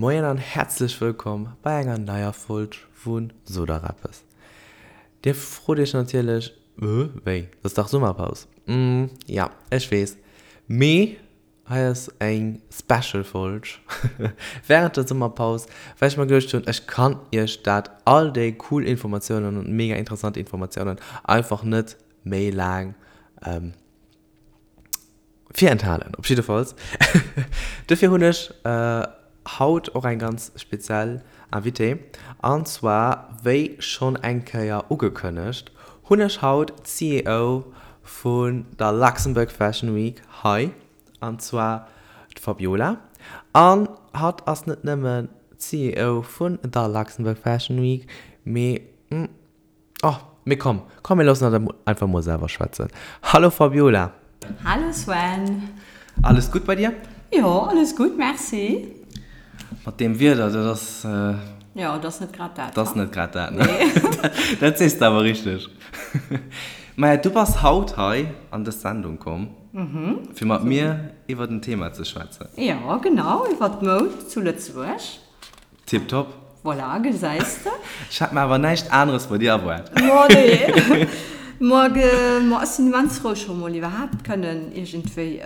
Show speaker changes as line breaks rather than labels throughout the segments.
Moien an häerzlech wëllkomm bei enger neier Folg vu Sot der eppes. Dir frot iech natierlech, Äh, wéi, dat ass dach Summerpaus? Mm, ja, ech weess, mee hei ass eng Special Folg wärend der Summerpaus, well ech mer geduecht hunn, ech kann iech dat, all déi cool Informatiounen an mega interessant Informatiounen einfach net méi laang Virenthalen, op jiddefalls. Dofir hunn ech haut och eng ganz speziell Invitée. An zwar, wéi schonn eng Kéier ugekënnegt, hunn ech haut d'CEO vun der Luxembourg Fashion Week hei, an zwar d'Fabiola. An hatt ass net nëmmen d'CEO vun der Luxembourg Fashion Week, mee Oh, mee komm, komm mir loossen hatt einfach mol selwer schwätzen. Hallo Fabiola!
Hallo Sven!
Alles gutt bei dir?
Jo, alles gutt, merci.
Mat deem Wieder, dat ass.
Jo, dat ass net grad dat.
Dat ass net grad dat, ne? Dat sees de awer richteg. Maja, du bass haut hei an dës Sendung komm, fir mat mir iwwert en Thema ze schwätzen.
Jo, genau, iwwert d'Moud zu Lëtzebuerg.
Tiptop.
Voilà, gesäis de.
Ech hat mer awer näischt aneres bei dir erwaart.
Ma nee. Ma ech sinn immens frou scho mol iwwerhaapt kënnen iergendwéi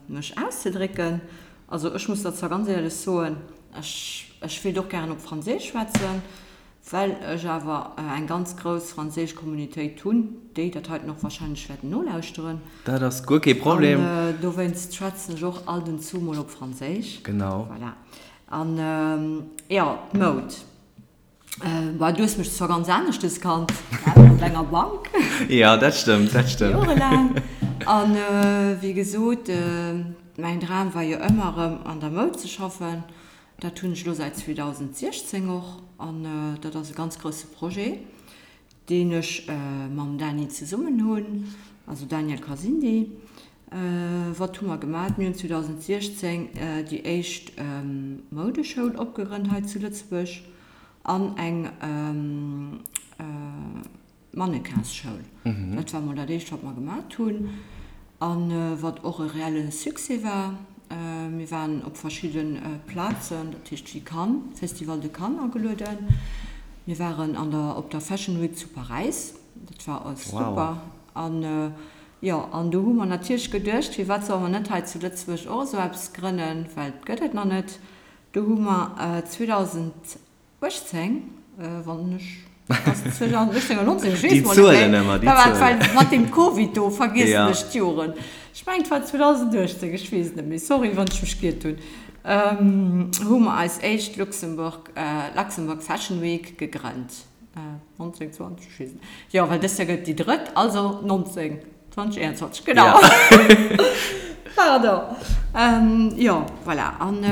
mech auszedrécken. Also ech muss der zwar ganz éierlech soen, ech ech wéilt och gären op Franséisch schwätzen, well ech awer eng ganz grouss franséisch Communitéit hunn, déi dat heiten och wahrscheinlech wäerten nolauschteren.
Dat ass guer kee Problem.
An dowéinst schwätzen ech och alt en zu mol op Franséisch.
Genau.
Voilà. An jo, d'Moud. Bah, du hues mech zwar ganz aneschtes kannt, gell, op enger Bank.
Jo, dat stëmmt, dat stëmmt.
Jorelaang. An wéi gesot, mäin Dram war jo ëmmer erëm an der Moud ze schaffen. Dat hunn ech elo säit 2016 och. An dat ass e ganz grousse Projet, deen ech mam Dany zesummen hunn, also Daniel Kasindi. Wat hu mer gemat? Mir hunn 2016 déi éischt Moudeschoul opgegrënnt hei zu Lëtzebuerg an eng Mannequinsschoul. Dat war mol dat éischt, wat mer gemat hunn a wat och e reelle Succès war. Mir waren op verschidde Plazen, dat heescht wéi Cannes, Festival de Cannes agelueden. Mir waren an der op der Fashion Week zu Paräis, dat war super. An jo, an do hu mer natierlech geduecht, firwat solle mer net hei zu Lëtzebuerg och esou eppes grënnen, well et gëtt et nach net. Do hu mer 2018, wann ech, ass et 2018 oder 19, ech weess mol net méi,
déi Zuelen,
well mat deem Covid do vergiessen ech d'Joren. Ech mengen et war 2018, ech weess et net méi, sorry wann ech mech giert hunn, hu mer eis éischt Luxembourg, Luxembourg Fashion Week gegrënnt. 19, 20, ech weess net. Jo, well dëst Joer gëtt et déi drëtt, also 19, 20, 21, genau. Pardon. Jo, voilà. An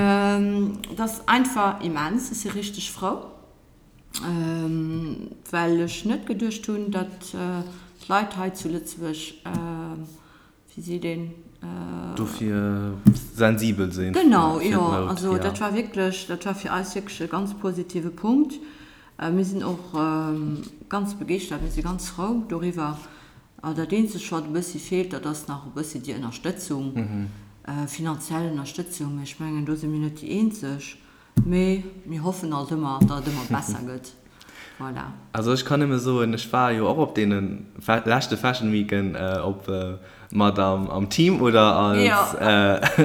et ass einfach immens. Ech si richteg frou, well ech net geduecht hunn, datt d'Leit hei zu Lëtzebuerg Wéi seet een?
Dofir sensibel sinn.
Genau, jo. Also dat war wierklech, dat war fir eis wierklech e ganz positive Punkt. Mir sinn och ganz begeeschtert, mir si ganz frou doriwwer. Dat eenzegt, wat e bëssi feelt, dat ass nach e bëssi déi Ënnerstëtzung, finanziell Ënnerstëtzung. Mee ech mengen, do si mir net déi eenzeg. Mee mir hoffen alt ëmmer, datt et ëmmer besser gëtt. Voilà.
Also ech kann nëmme soen, ech war jo och op deene leschte Fashion Weeken op mat am Team oder als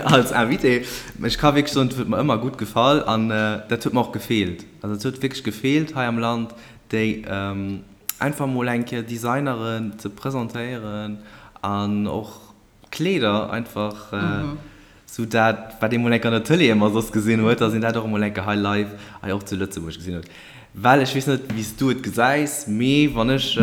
als Invité. Ech ka wierklech soen, et huet mer ëmmer gutt gefall an dat huet mer och gefeelt. Also et huet wierklech gefeelt hei am Land, déi einfach mol eng Kéier Designeren ze presentéieren an och Kleeder einfach sou dat wat ee mol enk an der Tëlee ëmmer soss gesinn huet, dass een dat och emol enke hei live hei och zu Lëtzebuerg gesinn huet. Well ech weess net wéi s du et gesäis, mee wann ech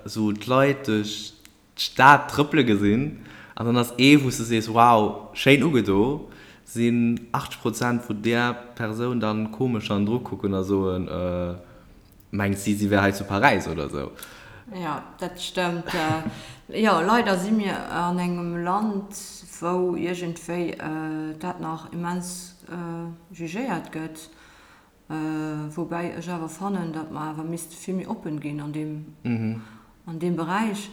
sou d'Leit duerch d'Stad trëppele gesinn an dann ass ee wou s du sees wow schéin ugedo, sinn 80 Prozent vu där Persoun dann komesch hannendru kucken a soen, Mengt si, si wär hei zu Paräis oder sou?
Jo, dat stëmmt. Jo, leider si mir an engem Land, wou iergendwéi dat nach immens jugéiert gëtt. Woubäi ech awer fannen, datt mer awer misste vill méi oppen ginn an deem, an deem Beräich.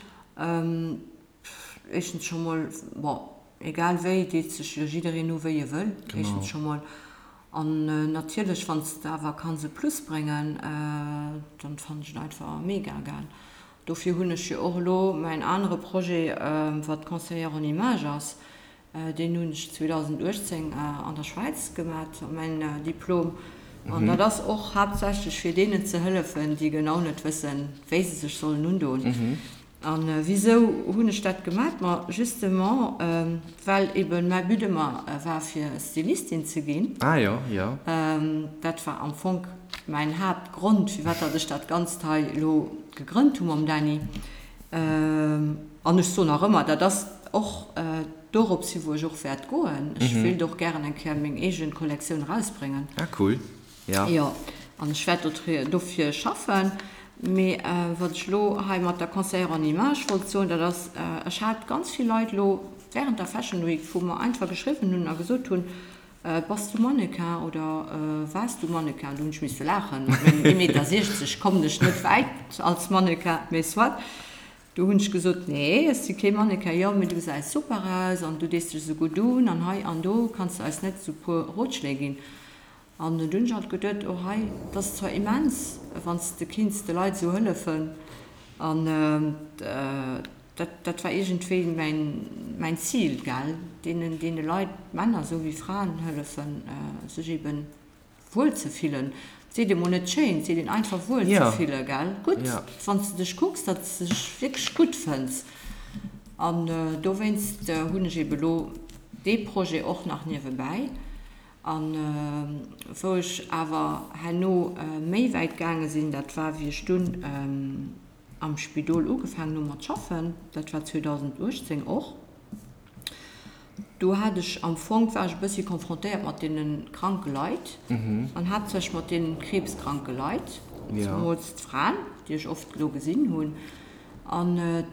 Éischtens scho mol, bon, egal wéi, deet sech jo jiddereen u wéi e wëll, éischtens scho mol. An natierlech, wann s de awer kanns e Plus bréngen, dann fannen ech et einfach mega gell. Dofir hunn ech jo och elo mäin anere Projet, wat Conseillère en image ass, deen hunn ech 2018 an der Schwäiz gemat, mäin Diplom. An dat ass och haaptsächlech fir deenen ze hëllefen, déi genau net wëssen, wéi se sech sollen undoen. A wisou hunn ech dat gemat? Ma justement, well eben mäi But ëmmer war, fir Stylistin ze ginn.
Ah jo, jo.
Dat war am Fong mäin Haaptgrond, firwat datt ech dat Ganzt hei elo gegrënnt hu mam Dany. An ech soen nach ëmmer, dat ass och dorops hi wou ech och wäert goen. Ech wéilt och gären eng Kéier meng eege Kollektioun erausbréngen.
Ah cool.
Jo. Jo, an ech wäert dofir schaffen. Mee wat ech elo hei mat der Conseillère en image wollt soen, dat ass, ech hat ganz vill Leit elo während der Fashion Week, wou mer einfach geschriwwen hunn a gesot hunn, Bass du Mannequin oder waars du Mannequin? Do hunn ech misse laachen, mat mengem ee Meter 60 kommen ech net wäit als Mannequin, mee soit. Do hunn ech gesot, Nee, ech si kee Mannequin. Jo, mee du gesäis super aus an du dees dech esou gutt un an hei an do, kanns de eis net esou e puer Rotschléi ginn? An dunn hunn ech alt geduet, oh hei, et ass zwar immens, wann s de kinns de Leit esou hëllefen, an dat, dat war iergendwéi mäin, mäin Zil, gell, deenen, deene Leit, Männer esou wéi Fraen, hëllefen, sech eben wuel ze fillen. Et seet ee mol net schéin, et seet een einfach wuel ze fillen, gell, gutt, wann s de dech kucks, datt s de dech wierklech gutt fënns. An dowéinst hunn ech eben elo dee Projet och nach niewebäi. A wou ech awer herno méi wäit gaange sinn, dat war wéi ech dunn am Spidol ugefaangen hu mat schaffen, dat war 2018 och, do hat ech am Fong, war ech e bëssi confrontéiert mat deene kranke Leit an haaptsächlech mat deene kriibskranke Leit, zemools d'Fraen, déi ech oft do gesinn hunn. An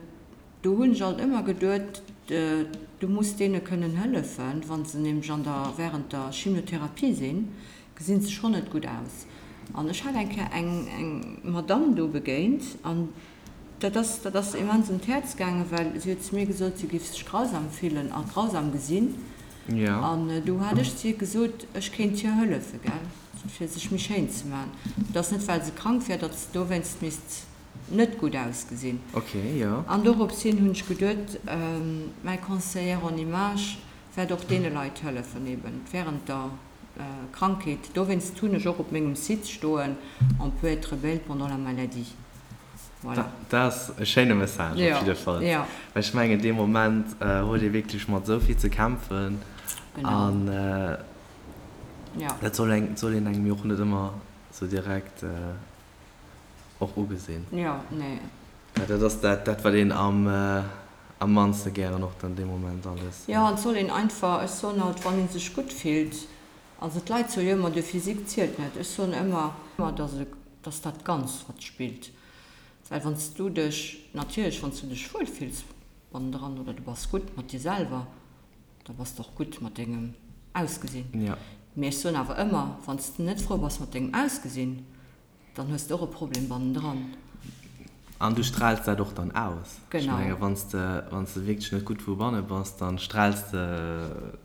Do hunn ech alt ëmmer geduet, du muss deene kënnen hëllefen, wa se nämlech an der, während der Chimiotherapie sinn, gesinn se schonn net gutt aus. An ech hat eng Kéier eng, eng Madamm do begéint an dat ass, dat ass immens un d'Häerz gaangen, well si huet zu mir gesot, si géif sech grausam fillen a grausam gesinn. An du hat ech zu hir gesot, ech kéint hir hëllefen, gell, fir sech méi schéin ze maachen. Et ass net, well se krank wär, datt se dowéinst misst net gutt ausgesinn.
Okay, jo.
An dorops hin hunn ech geduet, mäi Conseillère en image wäert och deene Leit hëllefen, eben während der Krankheet. Dowéinst hunn ech och op mengem Site stoen, On peut être belle pendant la maladie.
Voilà. Dat ass e schéine Message op jidde Fall.
Jo.
Well ech mengen, dee Moment huet ee wierklech mat esou vill ze kämpfen.
Genau.
An dat soll een engem jo och net ëmmer esou direkt. och ugesinn.
Jo, nee.
Well dat ass dat, dat wat een am, am mannste gären och dann dee Moment alles.
Jo, et soll een einfach, ech soen alt, wann ee sech gutt fillt, also d'Leit soe jo ëmmer, de Physique zielt net, ech soen ëmmer, dass e, dass dat Ganzt wat spillt, well wann s du dech, natierlech wann s du dech wuel fills bannendran oder du bass gutt mat dir selwer, da bass de och gutt mat dengem Ausgesinn.
Jo.
Mee ech soen awer ëmmer, wann s de net frou bass mat dengem Ausgesinn, Dann hues de och e Problem bannendran.
An du straals dat och dann aus.
Genau.
Ech menge wann s de, wann s de wierklech net gutt vu banne bass, dann straals de,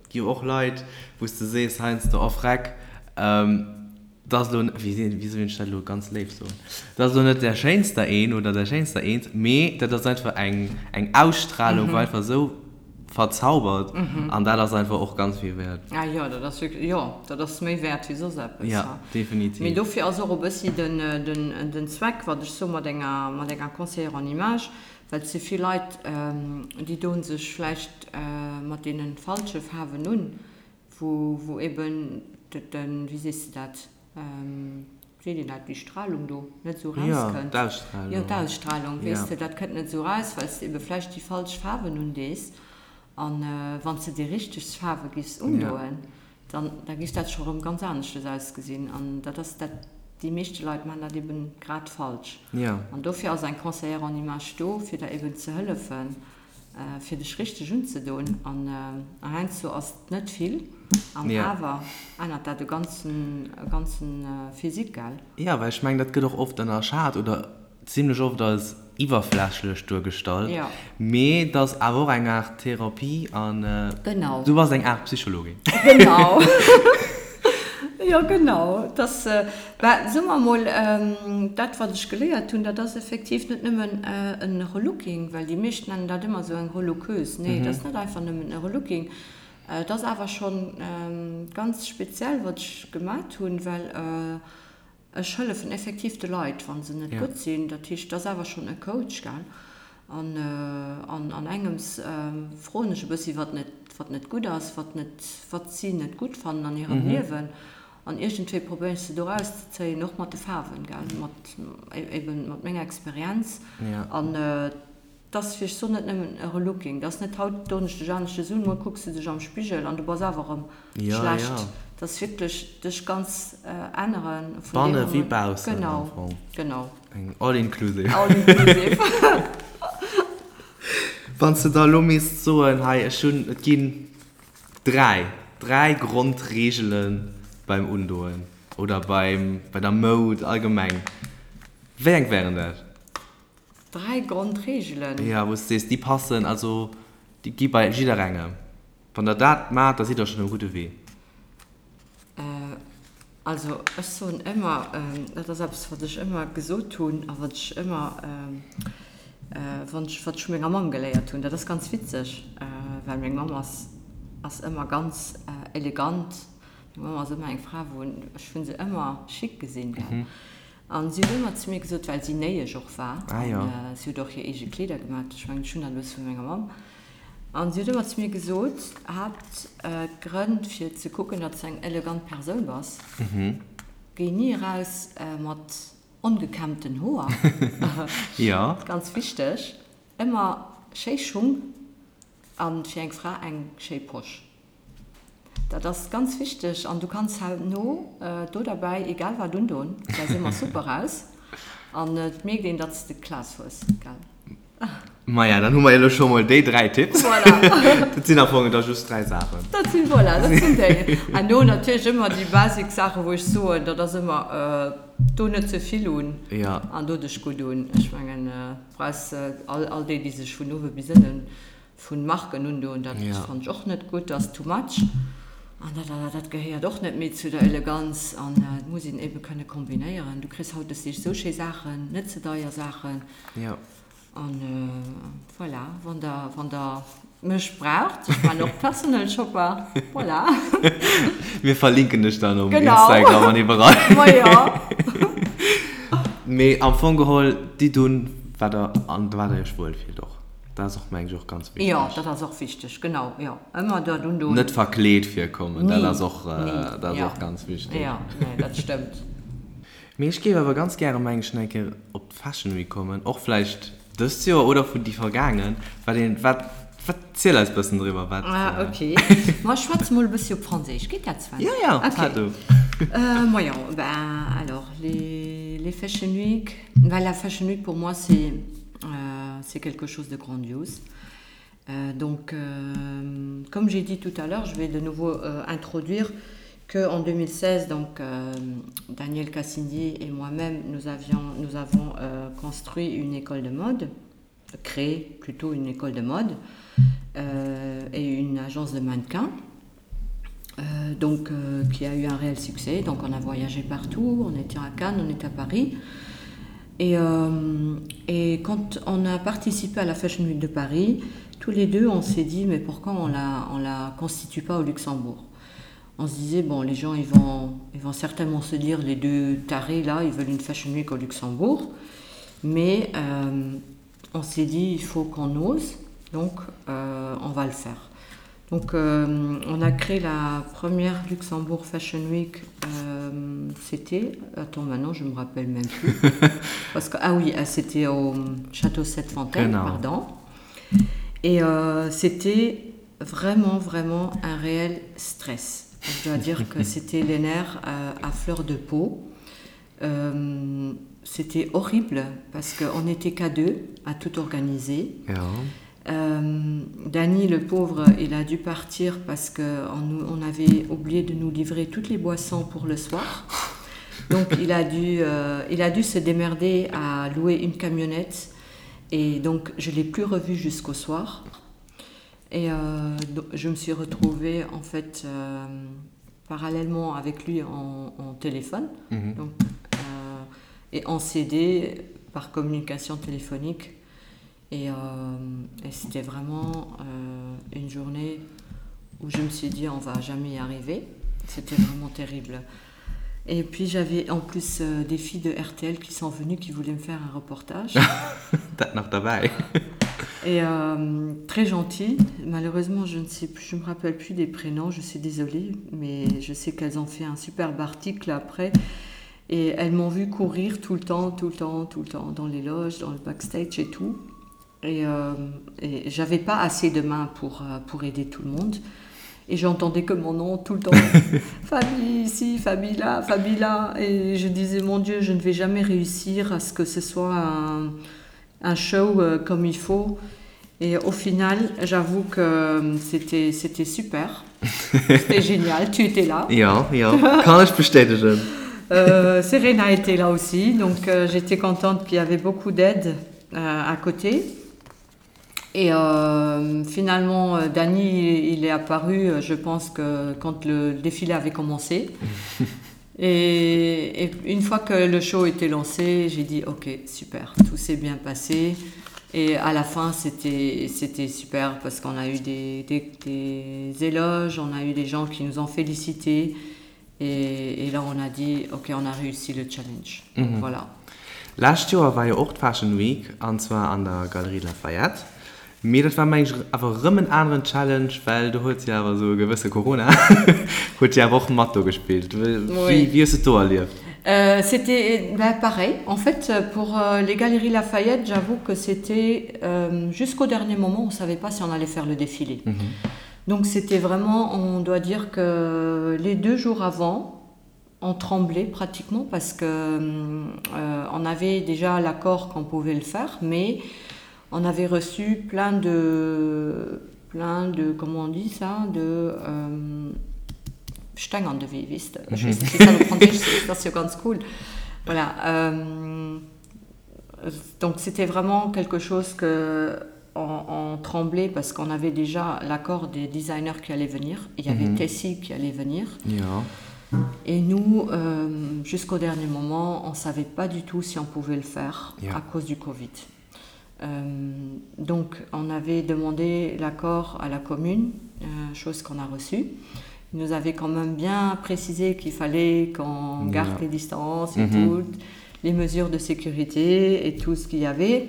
et gi jo och Leit, wou s de sees heiansdo, oh freck, dat ass elo, wéi wéi soll ech dat elo ganz léif soen, dat ass elo net där schéinster een oder där schéinster eent, mee dat ass einfach eng, eng Ausstrahlung, wou einfach esou verzaubert an dat ass einfach och ganz vill wäert.
Ah jo, dat ass wierklech, jo, dat ass méi wäert wéi soss eppes.
Jo, definitiv.
Mee dofir ass och e bëssi den, den, den Zweck, wat ech soe mat enger, mat enger Conseillère en image, well et si vill Leit, déi doen sech vläicht mat deene falsche Faarwen un, wou, wou eben den, wéi sees de dat, Seet een dat, déi Strahlung do net esou
rauskënnt? Jo, d'Ausstrahlung.
Jo, d'Ausstrahlung, weess de, dat kënnt net esou raus, well s de ebe vläicht déi falsch Faarwen undees. An wann s de déi richteg Faarwe giffs undoen, dann, da giff dat scho rëm ganz aneschtes ausgesinn. An dat ass dat, déi meeschte Leit maachen dat eben grad falsch. An dofir ass eng Conseillère en image do, fir der eben ze hëllefen, fir dech richteg unzedoen an heiansdo ass et net vill an awer ännert dat e ganzen e ganzen Physique, gell?
Jo, well ech mengen dat gëtt och oft ënnerschat oder zimlech oft als iwwerflächlech duergestallt, mee et ass awer och eng Aart Therapie an
du
bass eng Aart Psychologin.
Genau. Jo, genau. Et ass, bah, soe mer emol, dat wat ech geléiert hunn, dat ass effektiv net nëmmen en Relooking, well déi meescht nennen dat ëmmer esou eng Relookeuse. Nee, et ass net einfach nëmmen e Relooking. Et ass awer schonn ganz speziell, wat ech gemat hunn, well Ech hëllefen effektiv de Leit, wa se net gutt sinn. Dat heescht, et ass awer schonn e Coach, gell. An an engems froen ech e bëssi, wat net, wat net gutt ass, wat net, wat si net gutt fannen an hirem Liewen. An iergendwéi probéieren ech se do erauszezéien, och mat de Faarwen, gell, mat eben mat menger Experienz. An 't ass fir ech soen net nëmmen e Relooking, 't ass net haut doen ech dech aneschters un, muer kucks de dech am Spigel an du bass awer erëm schlecht. 't ass wierklech dech ganz änneren
vun deem Banne wéi baussen am
Genau,
Fong.
genau.
Eng all inclusive.
All inclusive.
Wann s de da elo misst soen, hei ech hunn, et ginn 3, 3 Grondreegele beim Undoen oder beim, bei der Moud allgemeng, wéi eng wären dat?
3 Grondregelen.
Jo, wou s de sees, déi passen, also déi gi bei jidderengem. Wann der dat maacht, da sidd der schonn um gudde Wee.
Also ech soen ëmmer, dat ass eppes wat ech ëmmer gesot hunn a wat ech ëmmer, wann ech, wat ech vu menger Mamm geléiert hunn, dat ass ganz witzeg, well meng Mamm ass, ass ëmmer ganz elegant, meng Mamm ass ëmmer eng Fra wou, ech hunn se ëmmer chic gesinn, gell. An si huet ëmmer zu mir gesot, well si Néiesch och war, an si huet och hir eege Kleeder gemaat, ech mengen, ech hunn dat e bësse vu menger Mamm, an si huet ëmmer zu mir gesot, Haaptgrënn fir ze kucken, datt s de eng elegant Persoun bass, géi ni eraus mat ongekämmten Hoer, ganz wichteg, ëmmer schéi Schung a fir eng Fra eng schéi Posch. Dat ass ganz wichteg an du kanns herno do derbäi egal wat undon, gesäis ëmmer super aus an et mierkt een datts de Class hues, gell?
Maja, dann hu mer elo scho mol déi 3 Tipps.
Voilà.
Dat sinn am Fong da just 3 Saachen.
Dat sinn, voilà, dat sinn déi. Herno natierlech ëmmer déi basic Saachen, wou ech soen, dat ass ëmmer do net ze vill un an do dech gutt un. Ech mengen, brauchs all, all déi, déi sech vun uewe bis ënnen Vun Marken undoen, dat fannt ech och net gutt, ass too much an dat dat gehéiert och net méi zu der Eleganz an et muss een eben kënne kombinéieren. Du kriss hautdesdeeg esou schéi Saachen, net ze deier Saachen an voilà, wann der wann der mech braucht, ech man och Personal Shopper, voilà.
Mir verlinken dech dann um Instagram an iwwerall.
Ma jo.
Mee am Fong geholl, ditt un wat der an wat der iech wuel fillt och. Dat ass och, mengen ech, och ganz
wichteg. Jo, dat ass och wichteg, genau, jo. Ëmmer dat undoen.
Net verkleet virkommen, dat ass och, dat ass och ganz wichteg.
Jo, nee, dat stëmmt.
Mee ech géif awer ganz gäre, mengen ech, nach eng Kéier op d'Fashion Week kommen, och vläicht dëst Joer oder vun déi vergaangen. Wat een, wat, wat, ziel eis bëssen driwwer, wat.
Ah, ok. Ma ech schwätze mol e bëssi op Franséisch, geet dat, Sven?
Jo, jo,
ok.
Du.
Majo, ben alors, les, les Fashion Week, well la Fashion Week pour moi c'est Euh, c'est quelque chose de grandiose. Euh, donc, euh, comme j'ai dit tout à l'heure, je vais de nouveau euh, introduire qu'en 2016, donc, euh, Daniel Cassindi et moi-même, nous, avions, nous avons euh, construit une école de mode, créé plutôt une école de mode euh, et une agence de mannequins. Euh, donc euh, qui a eu un réel succès donc on a voyagé partout on était à Cannes on était à Paris et, euh, et quand on a participé à la Fashion Week de Paris tous les deux on s'est dit mais pourquoi on la on la constitue pas au Luxembourg on se disait bon les gens ils vont ils vont certainement se dire les deux tarés là ils veulent une Fashion Week au Luxembourg mais euh, on s'est dit il faut qu'on ose donc euh, on va le faire Donc euh, on a créé la première Luxembourg Fashion Week euh, c'était attends maintenant je me rappelle même plus parce que ah oui ah, c'était au château cette fontaine pardon et euh, c'était vraiment vraiment un réel stress je dois dire que c'était les nerfs euh, à fleur de peau euh, c'était horrible parce qu'on n'était qu'à deux à tout organiser
ja.
Euh, Dany le pauvre il a dû partir parce que on, on avait oublié de nous livrer toutes les boissons pour le soir donc il a dû euh, il a dû se démerder à louer une camionnette et donc je l'ai plus revu jusqu'au soir et euh, je me suis retrouvée en fait euh, parallèlement avec lui en, en téléphone mm -hmm. donc, euh, et en CD par communication téléphonique. Et, euh, et c'était vraiment euh, une journée où je me suis dit on va jamais y arriver. C'était vraiment terrible. Et puis j'avais en plus euh, des filles de RTL qui sont venues qui voulaient me faire un reportage.
nach dabei.
Et euh, très gentil. Malheureusement, je ne sais plus, je me rappelle plus des prénoms, je suis désolée, mais je sais qu'elles ont fait un superbe article après. Et elles m'ont vu courir tout le temps, tout le temps, tout le temps, dans les loges, dans le backstage et tout. Et, euh, et j'avais pas assez de mains pour, euh, pour aider tout le monde. Et j'entendais que mon nom tout le temps. famille ici, famille là, famille là. Et je disais, mon Dieu, je ne vais jamais réussir à ce que ce soit un, un show euh, comme il faut. Et au final, j'avoue que euh, c'était c'était super. C'était génial, tu étais là.
Ja, ja, kann ech bestätegen.
Euh, Serena était là aussi, donc euh, j'étais contente qu'il y avait beaucoup d'aide euh, à côté. Et euh, finalement, euh, Dany, il est apparu, euh, je pense que quand le défilé avait commencé. et, et une fois que le show était lancé, j'ai dit ok, super, tout s'est bien passé. Et à la fin, c'était super parce qu'on a eu des, des, des éloges, on a eu des gens qui nous ont félicités. Et, et là, on a dit ok, on a réussi le challenge. Mm -hmm. Voilà.
Lescht Joer war jo och d'Fashion Week, an zwar an der Galerie Lafayette. Mee dat war meng ech awer erëm en aneren Challenge, well do huet jo awer esou e gewësse Corona huet jo awer och mat do gespillt. Wéi wéi hues de et do erlieft?
C'était ben pareil. En fait, pour les Galeries Lafayette, j'avoue que c'était jusqu'au dernier moment, on savait pas si on allait faire le défilé. Donc c'était vraiment, on doit dire que les deux jours avant, on tremblait pratiquement parce que euh, on avait déjà l'accord qu'on pouvait le faire, mais on avait reçu plein de plein de comment on dit ça de euh, Steng an de Wee, weess de. Ech weess net, wéi dat op Franséisch heescht, dat ass jo ganz cool. Voilà. Euh, donc c'était vraiment quelque chose que on, on tremblait parce qu'on avait déjà l'accord des designers qui allaient venir. Il y avait mm -hmm. Tessie qui allait venir.
Ja.
Et nous, euh, jusqu'au dernier moment, on ne savait pas du tout si on pouvait le faire ja. à cause du Covid. Euh, donc on avait demandé l'accord à la commune, euh, chose qu'on a reçue. Il nous avait quand même bien précisé qu'il fallait qu'on garde ja. les distances et mm -hmm. toutes les mesures de sécurité et tout ce qu'il y avait.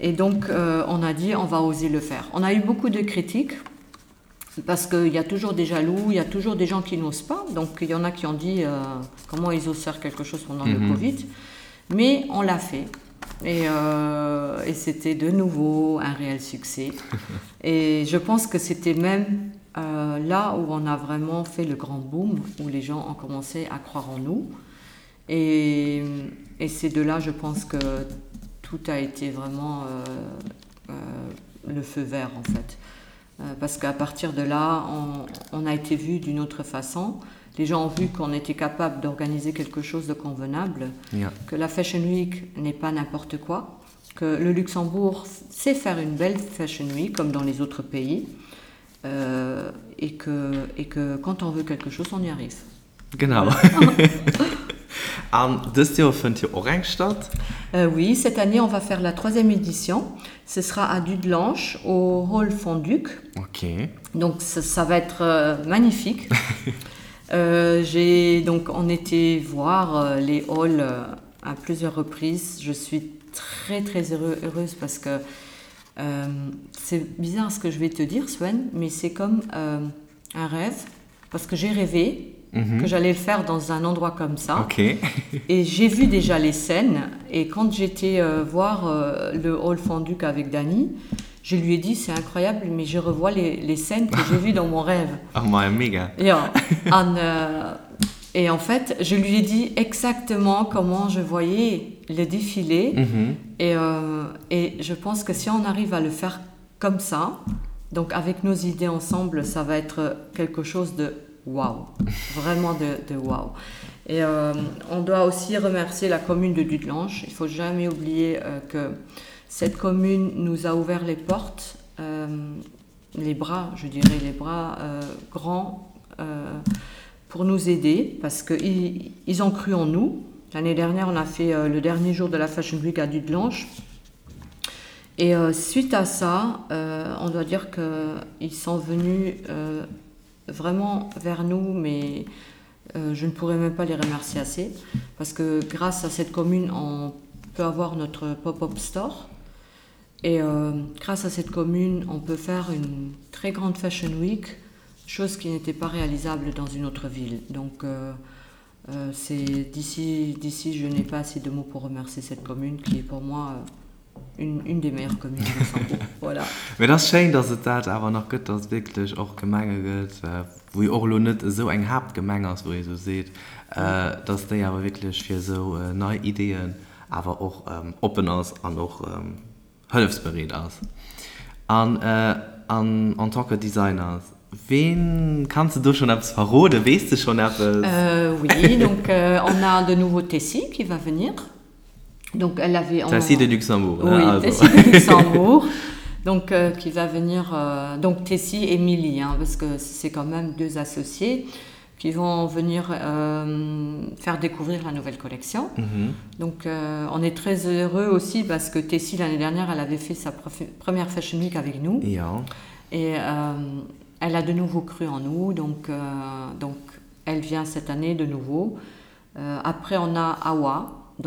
Et donc euh, on a dit on va oser le faire. On a eu beaucoup de critiques parce qu'il y a toujours des jaloux, il y a toujours des gens qui n'osent pas. Donc il y en a qui ont dit euh, comment ils osent faire quelque chose pendant mm -hmm. le mhm. Covid. Mais on l'a fait. Et, euh, et c'était de nouveau un réel succès. et je pense que c'était même euh, là où on a vraiment fait le grand boom, où les gens ont commencé à croire en nous. Et, et c'est de là, je pense que tout a été vraiment euh, euh, le feu vert en fait. Euh, parce qu'à partir de là, on, on a été vu d'une autre façon. Les gens ont vu qu'on était capable d'organiser quelque chose de convenable,
yeah.
que la Fashion Week n'est pas n'importe quoi, que le Luxembourg sait faire une belle Fashion Week comme dans les autres pays euh, et, que, et que quand on veut quelque chose, on y arrive.
Genau. An dëst Joer fënnt jo och eng statt.
Euh, oui, cette année on va faire la troisième édition. Ce sera à Dudelange au Hall Fonduc.
Ok.
Donc ça, ça va être euh, magnifique. euh, j'ai donc on était voir euh, les halls euh, à plusieurs reprises. Je suis très très heureux, heureuse parce que euh, c'est bizarre ce que je vais te dire Sven, mais c'est comme euh, un rêve parce que j'ai rêvé mm -hmm. que j'allais le faire dans un endroit comme ça.
Okay.
et j'ai vu déjà les scènes et quand j'étais euh, voir euh, le hall Fonduc avec Dany, je lui ai dit c'est incroyable mais je revois les, les scènes que j'ai vues dans mon rêve.
Oh my mega.
Ja, an, euh, et en fait je lui ai dit exactement comment je voyais le défilé
mm -hmm.
et, euh, et je pense que si on arrive à le faire comme ça, donc avec nos idées ensemble, ça va être quelque chose de waouh, vraiment de, de waouh. Et euh, on doit aussi remercier la commune de Dudelange. Il faut jamais oublier euh, que cette commune nous a ouvert les portes, euh, les bras, je dirais les bras euh, grands euh, pour nous aider parce qu'ils ils ont cru en nous. L'année dernière, on a fait euh, le dernier jour de la Fashion Week à Dudelange. Et euh, suite à ça, euh, on doit dire qu'ils sont venus euh, vraiment vers nous, mais euh, je ne pourrais même pas les remercier assez parce que grâce à cette commune, on peut avoir notre pop-up store. Et euh, grâce à cette commune, on peut faire une très grande Fashion Week, chose qui n'était pas réalisable dans une autre ville. Donc euh, euh, c'est d'ici d'ici je n'ai pas assez de mots pour remercier cette commune qui est pour moi euh, une, une des meilleures communes du Luxembourg. voilà.
Mee et ass schéin, dass et dat awer nach gëtt, dass et wierklech och Gemenge gëtt, wou jo och elo net esou eng Haaptgemeng ass, wou ee esou seet, dass déi awer wierklech fir esou nei Ideeën awer och oppen ass an och hëllefsbereet ass. An an en tant que Designer, ween, kanns de do schonn eppes verroden, weess de schonn eppes?
Oui, donc on a de nouveau Tessy qui va venir. Donc elle avait
Tessy de Luxembourg,
hein, oui, also. Tessy de Luxembourg. Donc euh, qui va venir euh, donc Tessy et Milly hein, parce que c'est quand même deux associés qui vont venir euh, faire découvrir la nouvelle collection. Mm -hmm. Donc euh, on est très heureux aussi parce que Tessie l'année dernière elle avait fait sa première fashion week avec nous
ja.
et euh, elle a de nouveau cru en nous donc, euh, donc elle vient cette année de nouveau. Euh, après on a Awa,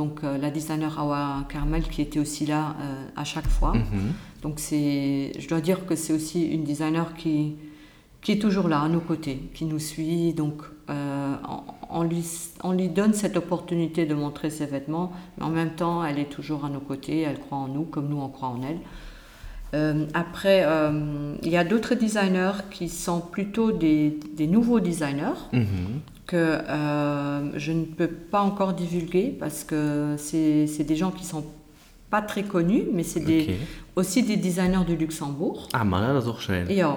donc euh, la designer Awa Carmel qui était aussi là euh, à chaque fois. Mm -hmm. Donc c'est je dois dire que c'est aussi une designer qui, qui est toujours là à nos côtés, qui nous suit donc euh, on, on, lui, on lui donne cette opportunité de montrer ses vêtements, mais en même temps elle est toujours à nos côtés, elle croit en nous comme nous on croit en elle. Euh, après euh, il y a d'autres designers qui sont plutôt des, des nouveaux designers
mm -hmm.
que euh, je ne peux pas encore divulguer parce que c'est des gens qui sont pas très connus, mais c'est des, okay. aussi des designers du Luxembourg.
Ah, ma dat ass och schéin.
Jo.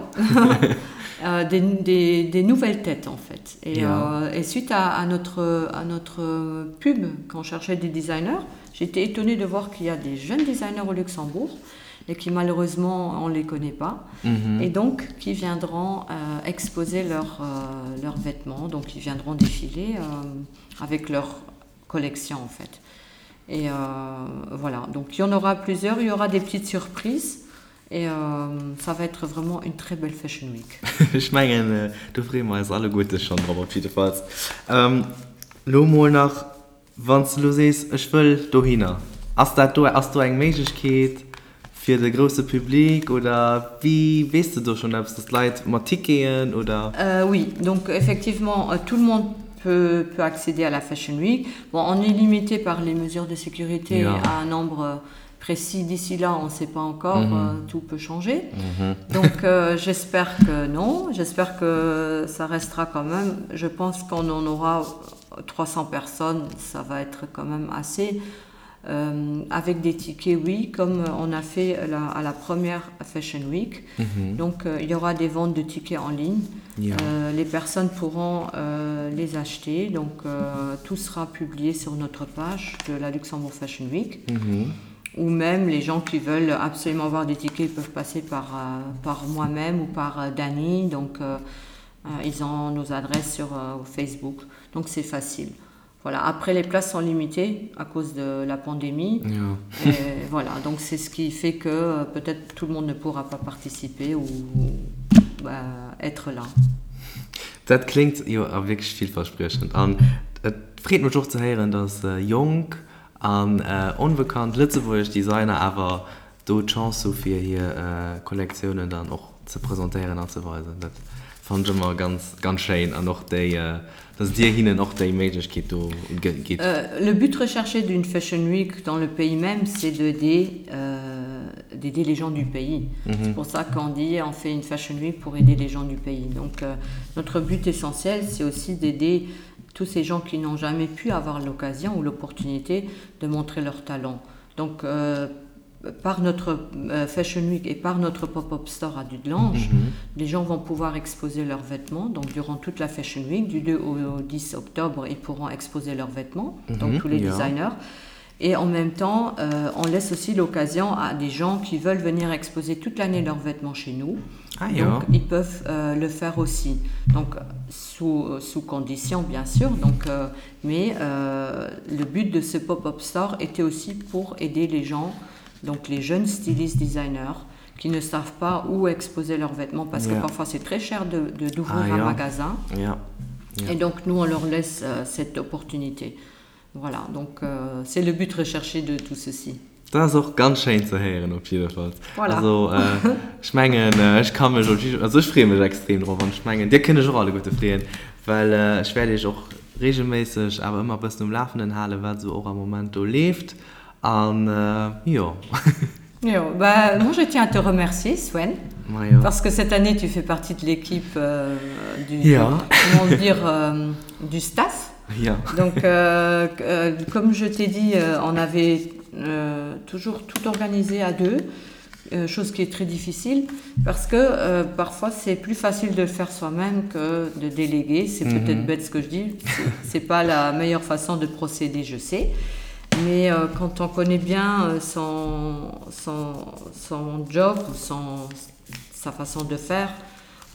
des, des, des nouvelles têtes en fait. Et,
ja.
euh, et suite à, à, notre, à notre pub, quand on cherchait des designers, j'étais étonnée de voir qu'il y a des jeunes designers au Luxembourg et qui malheureusement on les connaît pas
mm -hmm.
et donc qui viendront euh, exposer leurs euh, leurs vêtements donc ils viendront défiler euh, avec leur collection en fait et euh, voilà donc il y en aura plusieurs il y aura des petites surprises et euh, ça va être vraiment une très belle fashion week
Ech mengen äh, do freeë mer eis alleguerte schonn drop op jiddefalls. Ähm, lo mol nach, wann s de lo sees, ech wëll dohinner, ass dat do, ass do eng Méiglechkeet fir de grousse Public oder wéi, weess de do schonn eppes, dass d'Leit mat Ticketen oder?
Euh, oui, donc effectivement euh, tout le monde peut, peut accéder à la Fashion Week. Bon, on est limité par les mesures de sécurité
Ja.
à un nombre euh, précis d'ici là, on ne sait pas encore,
Mm -hmm.
euh, tout peut changer.
Mm -hmm.
Donc euh, j'espère que non, j'espère que ça restera quand même. Je pense qu'on en aura 300 personnes, ça va être quand même assez. Euh, avec des tickets, oui, comme on a fait la, à la première Fashion Week.
Mm -hmm.
Donc euh, il y aura des ventes de tickets en ligne.
Ja.
Euh, les personnes pourront euh, les acheter. Donc euh, tout sera publié sur notre page de la Luxembourg Fashion Week.
Mm -hmm.
Ou même les gens qui veulent absolument avoir des tickets peuvent passer par, euh, par moi-même ou par euh, Dany. Donc euh, euh, ils ont nos adresses sur euh, Facebook. Donc c'est facile. Voilà. Après les places sont limitées à cause de la pandémie.
Ja.
Et voilà, donc c'est ce qui fait que euh, peut-être tout le monde ne pourra pas participer ou bah, être là.
Dat kléngt jo a wierklech villverspriechend an et freet mech och ze héieren, dass jonk an onbekannt lëtzebuergesch Designer awer do d'Chance hu fir hir Kollektiounen dann och ze presentéieren an ze weisen. Dat fannen ech ëmmer ganz, ganz schéin an och déi, dass Dir hinnen och déi Méiglechkeet do gitt.
Le but recherché d'une Fashion Week dans le pays même, c'est d'aider d'aider les gens du pays. C'est pour ça qu'on dit on fait une Fashion Week pour aider les gens du pays. Donc notre but essentiel, c'est aussi d'aider tous ces gens qui n'ont jamais pu avoir l'occasion ou l'opportunité de montrer leur talent. Donc euh, par notre euh, Fashion Week et par notre pop-up store à Dudelange,
mm -hmm.
les gens vont pouvoir exposer leurs vêtements. Donc durant toute la Fashion Week, du 2 au 10 octobre, ils pourront exposer leurs vêtements, mm -hmm, donc tous les
ja.
designers. Et en même temps, euh, on laisse aussi l'occasion à des gens qui veulent venir exposer toute l'année leurs vêtements chez nous.
Ah, ja.
Donc, ils peuvent euh, le faire aussi. Donc, sous, sous condition, bien sûr. Donc, euh, mais euh, le but de ce pop-up store était aussi pour aider les gens, donc les jeunes stylistes designers, qui ne savent pas où exposer leurs vêtements parce
yeah.
que parfois c'est très cher de, de, d'ouvrir
ah,
un
ja.
magasin.
Ja.
Ja. Et donc nous on leur laisse euh, cette opportunité. Voilà, donc euh, c'est le but recherché de tout ceci.
Dat ass och ganz schéin ze héieren op jiddefalls.
Voilà.
Also ech mengen ech ka mech op jidde, also ech freeë mech extrem drop an ech mengen dir kënnt iech och alleguerte freeën, well ech wäert iech och regelméisseg awer ëmmer e bëssen um Lafenden halen, wat esou och am Moment do leeft an jo.
Jo, bah moi je tiens à te remercier Sven,
Majo.
parce que cette année tu fais partie de l'équipe euh, du,
Ja.
comment dire, euh, du staff.
Ja.
Donc euh, euh, comme je t'ai dit, euh, on avait euh, toujours tout organisé à deux, euh, chose qui est très difficile parce que euh, parfois c'est plus facile de le faire soi-même que de déléguer. C'est mm -hmm. peut-être bête ce que je dis, c'est pas la meilleure façon de procéder, je sais. Mais euh, quand on connaît bien euh, son, son, son job ou son, sa façon de faire,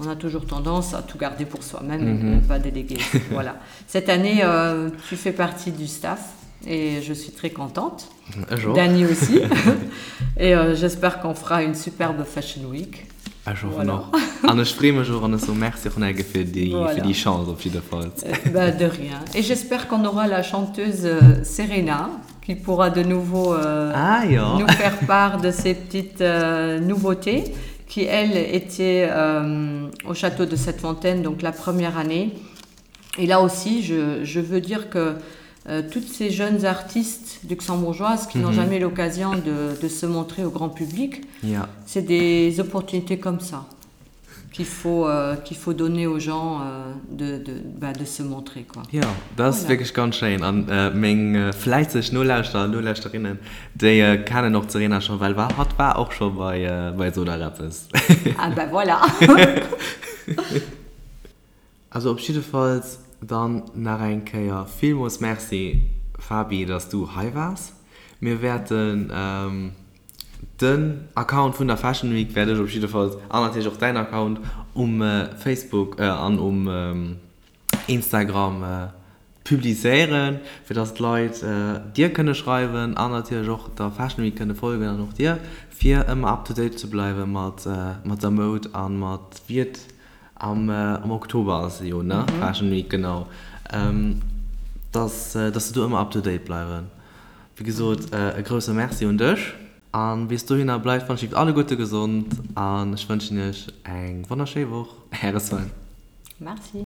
on a toujours tendance à tout garder pour soi-même mm -hmm. et ne mhm. pas déléguer. voilà. Cette année, euh, tu fais partie du staff et je suis très contente. Dani aussi. et euh, j'espère qu'on fera une superbe Fashion Week.
Ech hoffen och. An ech freeë mech och an ech soe Merci och nach eng Kéier fir déi,
Voilà.
fir déi Chance op jiddefalls.
Bah, de rien. Et j'espère qu'on aura la chanteuse euh, Serena qui pourra de nouveau euh,
Ah jo.
nous faire part de ses petites euh, nouveautés qui, elle, était euh, au château de cette fontaine, donc la première année. Et là aussi, je, je veux dire que euh, toutes ces jeunes artistes luxembourgeoises qui mm -hmm. n'ont jamais l'occasion de, de se montrer au grand public,
yeah.
c'est des opportunités comme ça qu'il faut, euh, qu'il faut donner aux gens euh, de, de, bah, de se montrer. Quoi.
Jo, dat ass wierklech ganz schéin. An meng fläisseg Nolauschterer an Nolauschterinnen, déi kennen och d'Serena scho, well hatt war och scho bei, bei Sot alt eppes.
Ah ben voilà!
Also op jiddefalls dann nach eng Kéier villmools Merci Fabi, dass du hei waars. Mir wäerten den Account vun der Fashion Week wäert ech op jiddefalls an natierlech och däin Account um Facebook an um Instagram publizéieren, fir dass d'Leit dir kënne schreiwen an natierlech och der Fashion Week kënne folgen an och dir, fir ëmmer up to date ze bleiwe mat der Moud a mat wéi et Am Oktober ass se jo, ne? Fashion Week, genau. Dass, dass se do ëmmer up to date bleiwen. Wéi gesot, e grousse Merci un dech. A bis dohinner, bleift wann ech alleguerte gesond an ech wënschen iech eng wonnerschéi Woch. Äre Sven.
Merci.